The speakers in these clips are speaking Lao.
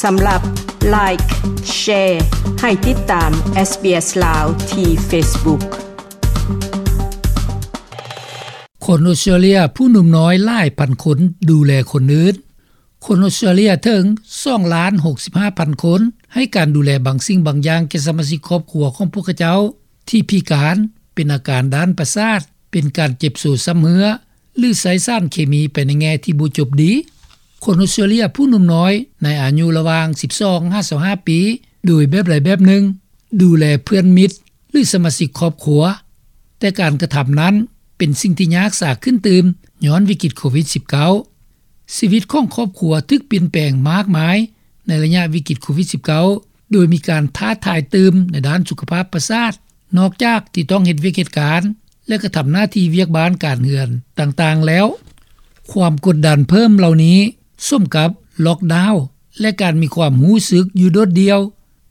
ສຳລັບ Like, Share ໃຫ້ຕິດຕາມ SBS ລາວ ທີ່ Facebook. ຄົນອົດສະຕຣາເລຍຜູ້ໜຸ່ມນ້ອຍຫຼາຍພັນຄົນດູແລຄົນອື່ນ. ຄົນອົດສະຕຣາເລຍເຖິງສອງລ້ານຫົກສິບຫ້າພັນຄົນ ໃຫ້ການດູແລບາງສິ່ງບາງຢ່າງແກ່ສະມາຊິກຄອບຄົວຂອງພວກເຂົາເຈົ້າ ທີ່ພິການ, ເປັນອາການດ້ານປະສາດ, ເປັນການເຈັບໂຊຊ້ຳເຮື້ອ ຫຼື ໃຊ້ສານເຄມີໄປໃນແງ່ທີ່ບໍ່ຈົບດີ. ຄົນອົດສະຕຣາເລຍຜູ້ໜຸ່ມນ້ອຍໃນອາຍຸລະຫວ່າງສິບສອງຫາຊາວຫ້າປີ ໂດຍແບບໃດແບບໜຶ່ງ ດູແລເພື່ອນມິດ ຫຼື ສະມາຊິກຄອບຄົວ, ແຕ່ການກະທຳນັ້ນເປັນສິ່ງທີ່ຍາກສາຂຶ້ນຕື່ມ ຍ້ອນວິກິດໂຄວິດສິບເກົ້າ. ຊີວິດຂອງຄອບຄົວຖືກປ່ຽນແປງມາກມາຍໃນໄລຍະວິກິດໂຄວິດສິບເກົ້າ ໂດຍມີການທ້າທາຍຕື່ມໃນດ້ານສຸຂະພາບປະສາດ, ນອກຈາກທີ່ຕ້ອງເຮັດວຽກເຮັດການ ແລະ ກະທຳໜ້າທີ່ວຽກບ້ານການເຮືອນຕ່າງໆແລ້ວ. ຄວາມກົດດັນເພີ່ມເຫຼົ່ານີ້ ສົມກັບລັອກດາວ ແລະ ການມີຄວາມຮູ້ສຶກຢູ່ໂດດດ່ຽວ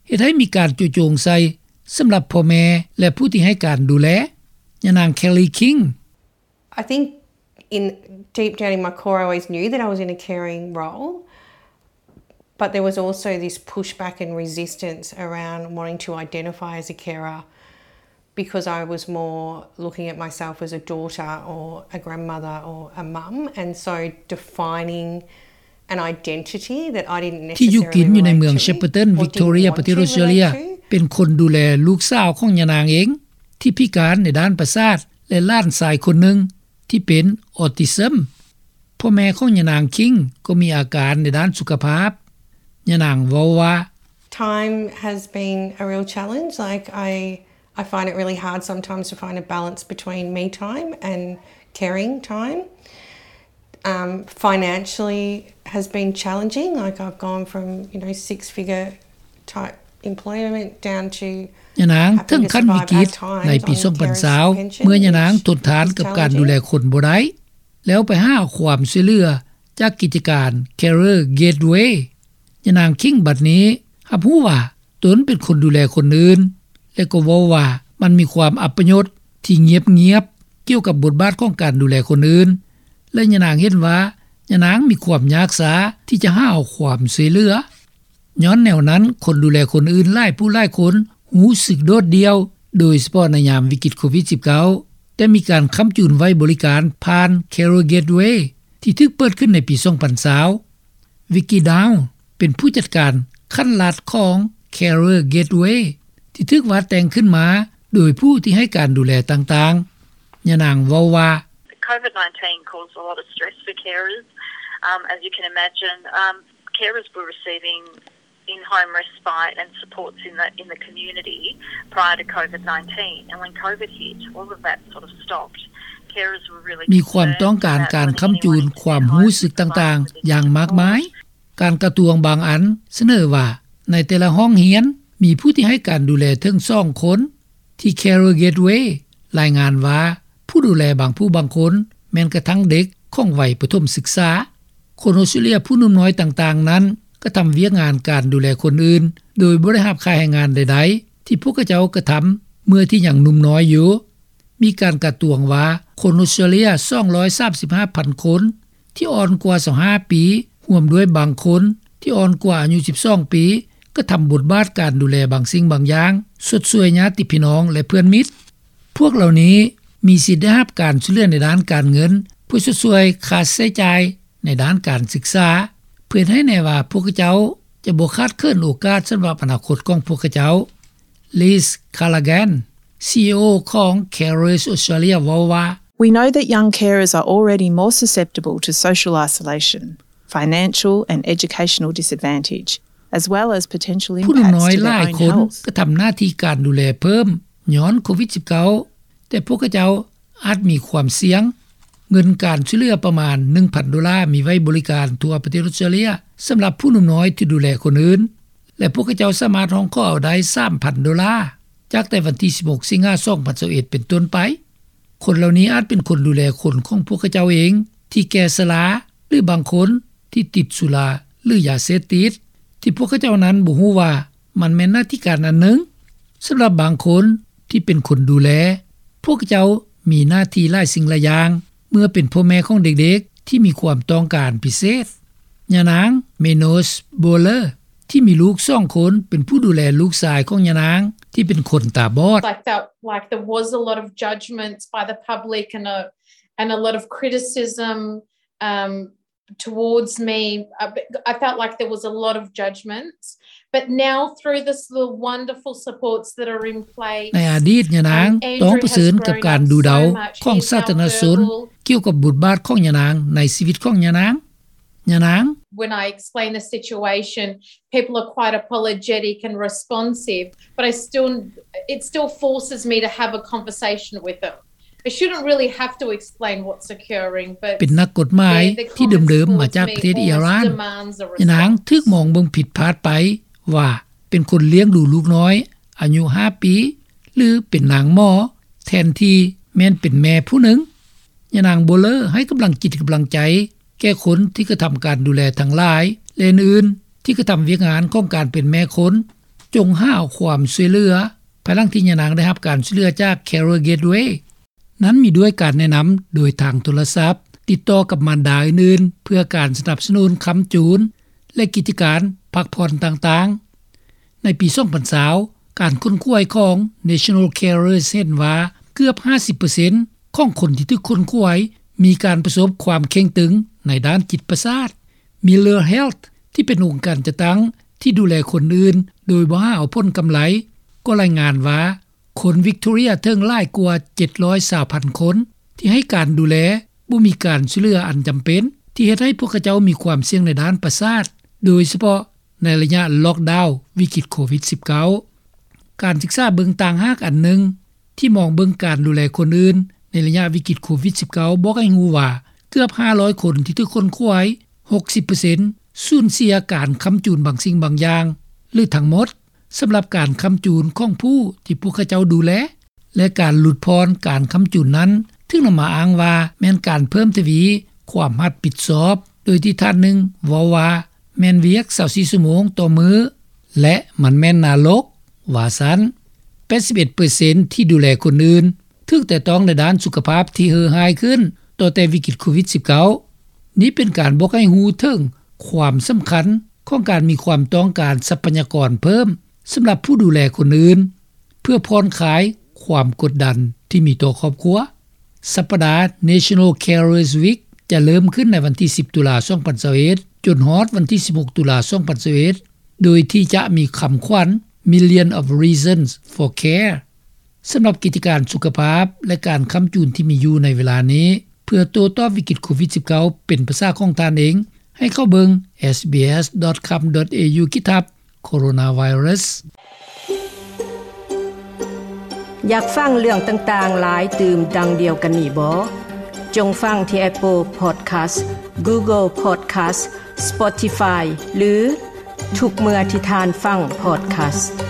ເຮັດໃຫ້ມີການໂຈະໂຈງໃສ່ສຳລັບພໍ່ແມ່ ແລະ ຜູ້ທີ່ໃຫ້ການດູແລ. ຍານາງ Kelly King. I think in deep down in my core, I always knew that I was in a caring role, but there was also this pushback and resistance around wanting to identify as a carer because I was more looking at myself as a daughter or a grandmother or a mum, and so defining an identity that I didn't ທີ່ຢູ່ກິນຢູ່ໃນເມືອງ Shepparton, Victoria, ປະເທດອົດສະຕຣາເລຍ ເປັນຄົນດູແລລູກສາວຂອງຍານາງເອງ ທີ່ພິການໃນດ້ານປະສາດ ແລະ ຫຼານຊາຍຄົນໜຶ່ງທີ່ເປັນອອທິຊຶມ. ພໍ່ແມ່ຂອງຍານາງ King ກໍມີອາການໃນດ້ານສຸຂະພາບ. ຍານາງເວົ້າວ່າ Time has been a real challenge. Like, I, I find it really hard sometimes to find a balance between me time and caring time. Um, financially has been challenging. Like, I've gone from, you know, six-figure type employment down to ຍານາງເຖິງຂັ້ນວິກິດໃນປີສອງພັນຊາວ ເມື່ອຍານາງທົນທານກັບການດູແລຄົນບໍ່ໄດ້ ແລ້ວໄປຫາຄວາມຊ່ວຍເຫຼືອຈາກກິດຈະການ Carer Gateway. ຍານາງ King ບັດນີ້ຮັບຮູ້ວ່າຕົນເປັນຄົນດູແລຄົນອື່ນ ແລະ ກໍເວົ້າວ່າມັນມີຄວາມອັບປະຍົດທີ່ງຽບໆ ກ່ຽວກັບບົດບາດຂອງການດູແລຄົນອື່ນ ແລະ ຍານາງເຫັນວ່າຍານາງມີຄວາມຍາກຊ້າທີ່ຈະຫາຄວາມຊ່ວຍເຫຼືອ. ຍ້ອນແນວນັ້ນ, ຄົນດູແລຄົນອື່ນຫຼາຍຜູ້ຫຼາຍຄົນຮູ້ສຶກໂດດດ່ຽວ, ໂດຍສະເພາະໃນຍາມວິກິດໂຄວິດສິບເກົ້າ, ແຕ່ມີການຄ້ຳຈູນໄວ້ບໍລິການຜ່ານ Carer Gateway ທີ່ຖືກເປີດຂຶ້ນໃນປີສອງພັນຊາວ. Vicky Dow ເປັນຜູ້ຈັດການຂັ້ນລັດຂອງ Carer Gateway ທີ່ຖືກວາດແຕ່ງຂຶ້ນມາໂດຍຜູ້ທີ່ໃຫ້ການດູແລຕ່າງໆ. ຍານາງເວົ້າວ່າ COVID nineteen caused a lot of stress for carers. Um, as you can imagine, um, carers were receiving in-home respite and supports in the, in the community prior to COVID nineteen. And when COVID hit, all of that sort of stopped. Carers were really ມີຄວາມຕ້ອງການການຄ້ຳຈູນຄວາມຮູ້ສຶກຕ່າງໆຢ່າງມາກມາຍ. ການກະຊວງບາງອັນສະເໜີວ່າ ໃນແຕ່ລະຫ້ອງຮຽນມີຜູ້ທີ່ໃຫ້ການດູແລເຖິງສອງຄົນ. ທີ່ Carer Gateway ລາຍງານວ່າ ຜູ້ດູແລບາງຜູ້ບາງຄົນແມ່ນກະທັ່ງເດັກຂອງໄວປະຖົມສຶກສາ. ຄົນອົດສະຕຣາເລຍຜູ້ໜຸ່ມນ້ອຍຕ່າງໆນັ້ນ ກະທຳວຽກງານການດູແລຄົນອື່ນ ໂດຍບໍ່ໄດ້ຮັບຄ່າແຮງງານໃດໆ ທີ່ພວກເຂົາເຈົ້າກະທຳເມື່ອທີ່ຍັງໜຸ່ມນ້ອຍຢູ່. ມີການກະຕວງວ່າ ຄົນອົດສະຕຣາເລຍສອງຮ້ອຍສາມສິບຫ້າພັນຄົນ ທີ່ອ່ອນກວ່າຊາວຫ້າປີ, ຮ່ວມດ້ວຍບາງຄົນທີ່ອ່ອນກວ່າອາຍຸສິບສອງປີ ກະທຳບົດບາດການດູແລບາງສິ່ງບາງຢ່າງ, ຊົດຊ່ວຍຍາດຕິພີ່ນ້ອງ ແລະ ເພື່ອນມິດ. ພວກເຫຼົ່ານີ້ມີສິດໄດ້ຮັບການຊ່ວຍເຫຼືອໃນດ້ານການເງິນ ເພື່ອຊົດຊ່ວຍຄ່າໃຊ້ຈ່າຍໃນດ້ານການສຶກສາ, ເພື່ອເຮັດໃຫ້ແນ່ວ່າພວກເຂົາເຈົ້າຈະບໍ່ຂາດເຂີນໂອກາດສຳລັບອະນາຄົດຂອງພວກເຂົາເຈົ້າ. Liz Callaghan, ຊີອີໂອ ຂອງ Carers Australia ເວົ້າວ່າ We know that young carers are already more susceptible to social isolation, financial and educational disadvantage, as well as potential impacts to their own health. ຜູ້ໜຸ່ມນ້ອຍຫຼາຍຄົນກະທຳໜ້າທີ່ການດູແລເພີ່ມຍ້ອນໂຄວິດສິບເກົ້າ, ແຕ່ພວກເຂົາເຈົ້າອາດມີຄວາມສ່ຽງ. ເງິນການຊ່ວຍເຫຼືອປະມານໜຶ່ງພັນໂດລາ ມີໄວ້ບໍລິການທົ່ວປະເທດອົດສະຕຣາເລຍ ສຳລັບຜູ້ໜຸ່ມນ້ອຍທີ່ດູແລຄົນອື່ນ ແລະ ພວກເຂົາເຈົ້າສາມາດຮ້ອງຂໍເອົາໄດ້ສາມພັນໂດລາ ຈາກແຕ່ວັນທີສິບຫົກ ສິງຫາ ສອງພັນຊາວເອັດ ເປັນຕົ້ນໄປ. ຄົນເຫຼົ່ານີ້ອາດເປັນຄົນດູແລຄົນຂອງພວກເຂົາເຈົ້າເອງທີ່ແກ່ຊະລາ ຫຼື ບາງຄົນທີ່ຕິດສຸລາ ຫຼື ຢາເສບຕິດ ທີ່ພວກເຂົາເຈົ້ານັ້ນບໍ່ຮູ້ວ່າມັນແມ່ນໜ້າທີ່ການອັນໜຶ່ງ. ສຳລັບບາງຄົນທີ່ເປັນຄົນດູແລ, ພວກເຂົາເຈົ້າມີໜ້າທີ່ຫຼາຍສິ່ງຫຼາຍຢ່າງ ເມື່ອເປັນພໍ່ແມ່ຂອງເດັກໆທີ່ມີຄວາມຕ້ອງການພິເສດ. ຍານາງ Minos Bowler ທີ່ມີລູກສອງຄົນ ເປັນຜູ້ດູແລລູກຊາຍຂອງຍານາງ ທີ່ເປັນຄົນຕາບອດ. I felt like there was a lot of judgments by the public and a, and a lot of criticism, um, towards me. I, I felt like there was a lot of judgments. But now, through this, the wonderful supports that are in place, ໃນອະດີດ ຍານາງຕ້ອງປະເຊີນກັບການດູເດົາຂອງສາທາລະນະຊົນ ກ່ຽວກັບບົດບາດຂອງຍານາງໃນຊີວິດຂອງຍານາງ. ຍານາງ. When I explain the situation, people are quite apologetic and responsive, but I still, it still forces me to have a conversation with them. I shouldn't really have to explain what's occurring, but ເປັນນັກກົດໝາຍທີ່ເດີມໆມາຈາກປະເທດອີຣານ. ຍານາງຖືກມອງເບິ່ງຜິດພາດໄປວ່າເປັນຄົນລ້ຽງດູລູກນ້ອຍອາຍຸຫ້າປີ ຫຼື ເປັນນາງໝໍ ແທນທີ່ແມ່ນເປັນແມ່ຜູ້ໜຶ່ງ. ຍານາງບໍ່ເລີໃຫ້ກຳລັງຈິດກຳລັງໃຈແກ່ຄົນທີ່ກະທຳການດູແລທັງຫຼາຍ ແລະ ອື່ນໆ ທີ່ກະທຳວຽກງານຂອງການເປັນແມ່ຄົນ. ຈົ່ງຫາຄວາມຊ່ວຍເຫຼືອ. ພາຍຫຼັງທີ່ຍານາງໄດ້ຮັບການຊ່ວຍເຫຼືອຈາກ Carer Gateway ນັ້ນມີດ້ວຍການແນະນຳໂດຍທາງໂທລະສັບ, ຕິດຕໍ່ກັບມານດາອື່ນໆ ເພື່ອການສະໜັບສະໜູນຄ້ຳຈູນ ແລະ ກິດຈະການພັກຜ່ອນຕ່າງໆ. ໃນປີສອງພັນຊາວ ການຄົ້ນຄວ້າຂອງ National Carers ເຫັນວ່າເກືອບຫ້າສິບເປີເຊັນຂອງຄົນທີ່ຖືກຄົ້ນຄວ້າມີການປະສົບຄວາມເຄັ່ງຕຶງໃນດ້ານຈິດປະສາດ. Miller Health ທີ່ເປັນອົງການຈັດຕັ້ງທີ່ດູແລຄົນອື່ນໂດຍບໍ່ຫາເອົາຜົນກຳໄລ ກໍລາຍງານວ່າ ຄົນວິກໂຕເຣຍເຖິງຫຼາຍກວ່າເຈັດຮ້ອຍຊາວພັນຄົນ ທີ່ໃຫ້ການດູແລບໍ່ມີການຊ່ວຍເຫຼືອອັນຈຳເປັນ ທີ່ເຮັດໃຫ້ພວກເຂົາເຈົ້າມີຄວາມສ່ຽງໃນດ້ານປະສາດ ໂດຍສະເພາະໃນໄລຍະລັອກດາວວິກິດໂຄວິດສິບເກົ້າ. ການສຶກສາເບິ່ງຕ່າງຫາກອັນໜຶ່ງ ທີ່ມອງເບິ່ງການດູແລຄົນອື່ນໃນໄລຍະວິກິດໂຄວິດສິບເກົ້າ ບອກໃຫ້ຮູ້ວ່າ ເກືອບຫ້າຮ້ອຍຄົນທີ່ຖືກຄົ້ນຄວ້າ ຫົກສິບເປີເຊັນ ສູນເສຍການຄ້ຳຈູນບາງສິ່ງບາງຢ່າງ ຫຼື ທັງໝົດ ສຳລັບການຄ້ຳຈູນຂອງຜູ້ທີ່ພວກເຂົາເຈົ້າດູແລ ແລະ ການຫຼຸດຜ່ອນການຄ້ຳຈູນນັ້ນ ຖືກນຳມາອ້າງວ່າແມ່ນການເພີ່ມທະວີຄວາມຮັບຜິດຊອບ, ໂດຍທີ່ທ່ານໜຶ່ງເວົ້າວ່າ ແມ່ນວຽກຊາວສີ່ຊົ່ວໂມງຕໍ່ມື້ ແລະ ມັນແມ່ນນະລົກ, ວ່າຊັ້ນ. ແປດສິບເອັດເປີເຊັນທີ່ດູແລຄົນອື່ນ ຖືກແຕະຕ້ອງໃນດ້ານສຸຂະພາບທີ່ເຮີ້ຮ້າຍຂຶ້ນ ຕໍ່ແຕ່ວິກິດໂຄວິດສິບເກົ້າ. ນີ້ເປັນການບອກໃຫ້ຮູ້ເຖິງຄວາມສຳຄັນຂອງການມີຄວາມຕ້ອງການຊັບພະຍາກອນເພີ່ມສຳລັບຜູ້ດູແລຄົນອື່ນ ເພື່ອຜ່ອນຄາຍຄວາມກົດດັນທີ່ມີຕໍ່ຄອບຄົວ. ສັບປະດາ National Carers Week ຈະເລີ່ມຂຶ້ນໃນວັນທີສິບ ຕຸລາ ສອງພັນຊາວເອັດ ຈົນຮອດວັນທີສິບຫົກ ຕຸລາ ສອງພັນຊາວເອັດ ໂດຍທີ່ຈະມີຄຳຂວັນ Million of Reasons for Care. ສຳລັບກິດຈະການສຸຂະພາບ ແລະ ການຄ້ຳຈູນທີ່ມີຢູ່ໃນເວລານີ້ ເພື່ອໂຕ້ຕອບວິກິດໂຄວິດສິບເກົ້າ ເປັນພາສາຂອງທ່ານເອງ ໃຫ້ເຂົ້າເບິ່ງ SBS dot com dot au ຂີດທັບ Coronavirus. ຢາກຟັງເລື່ອງຕ່າງໆຫຼາຍຕື່ມດັ່ງດຽວກັນນີ້ບໍ? ຈົ່ງຟັງທີ່ Apple Podcast, Google Podcast, Spotify ຫຼື ທຸກເມື່ອທີ່ທ່ານຟັງ Podcast.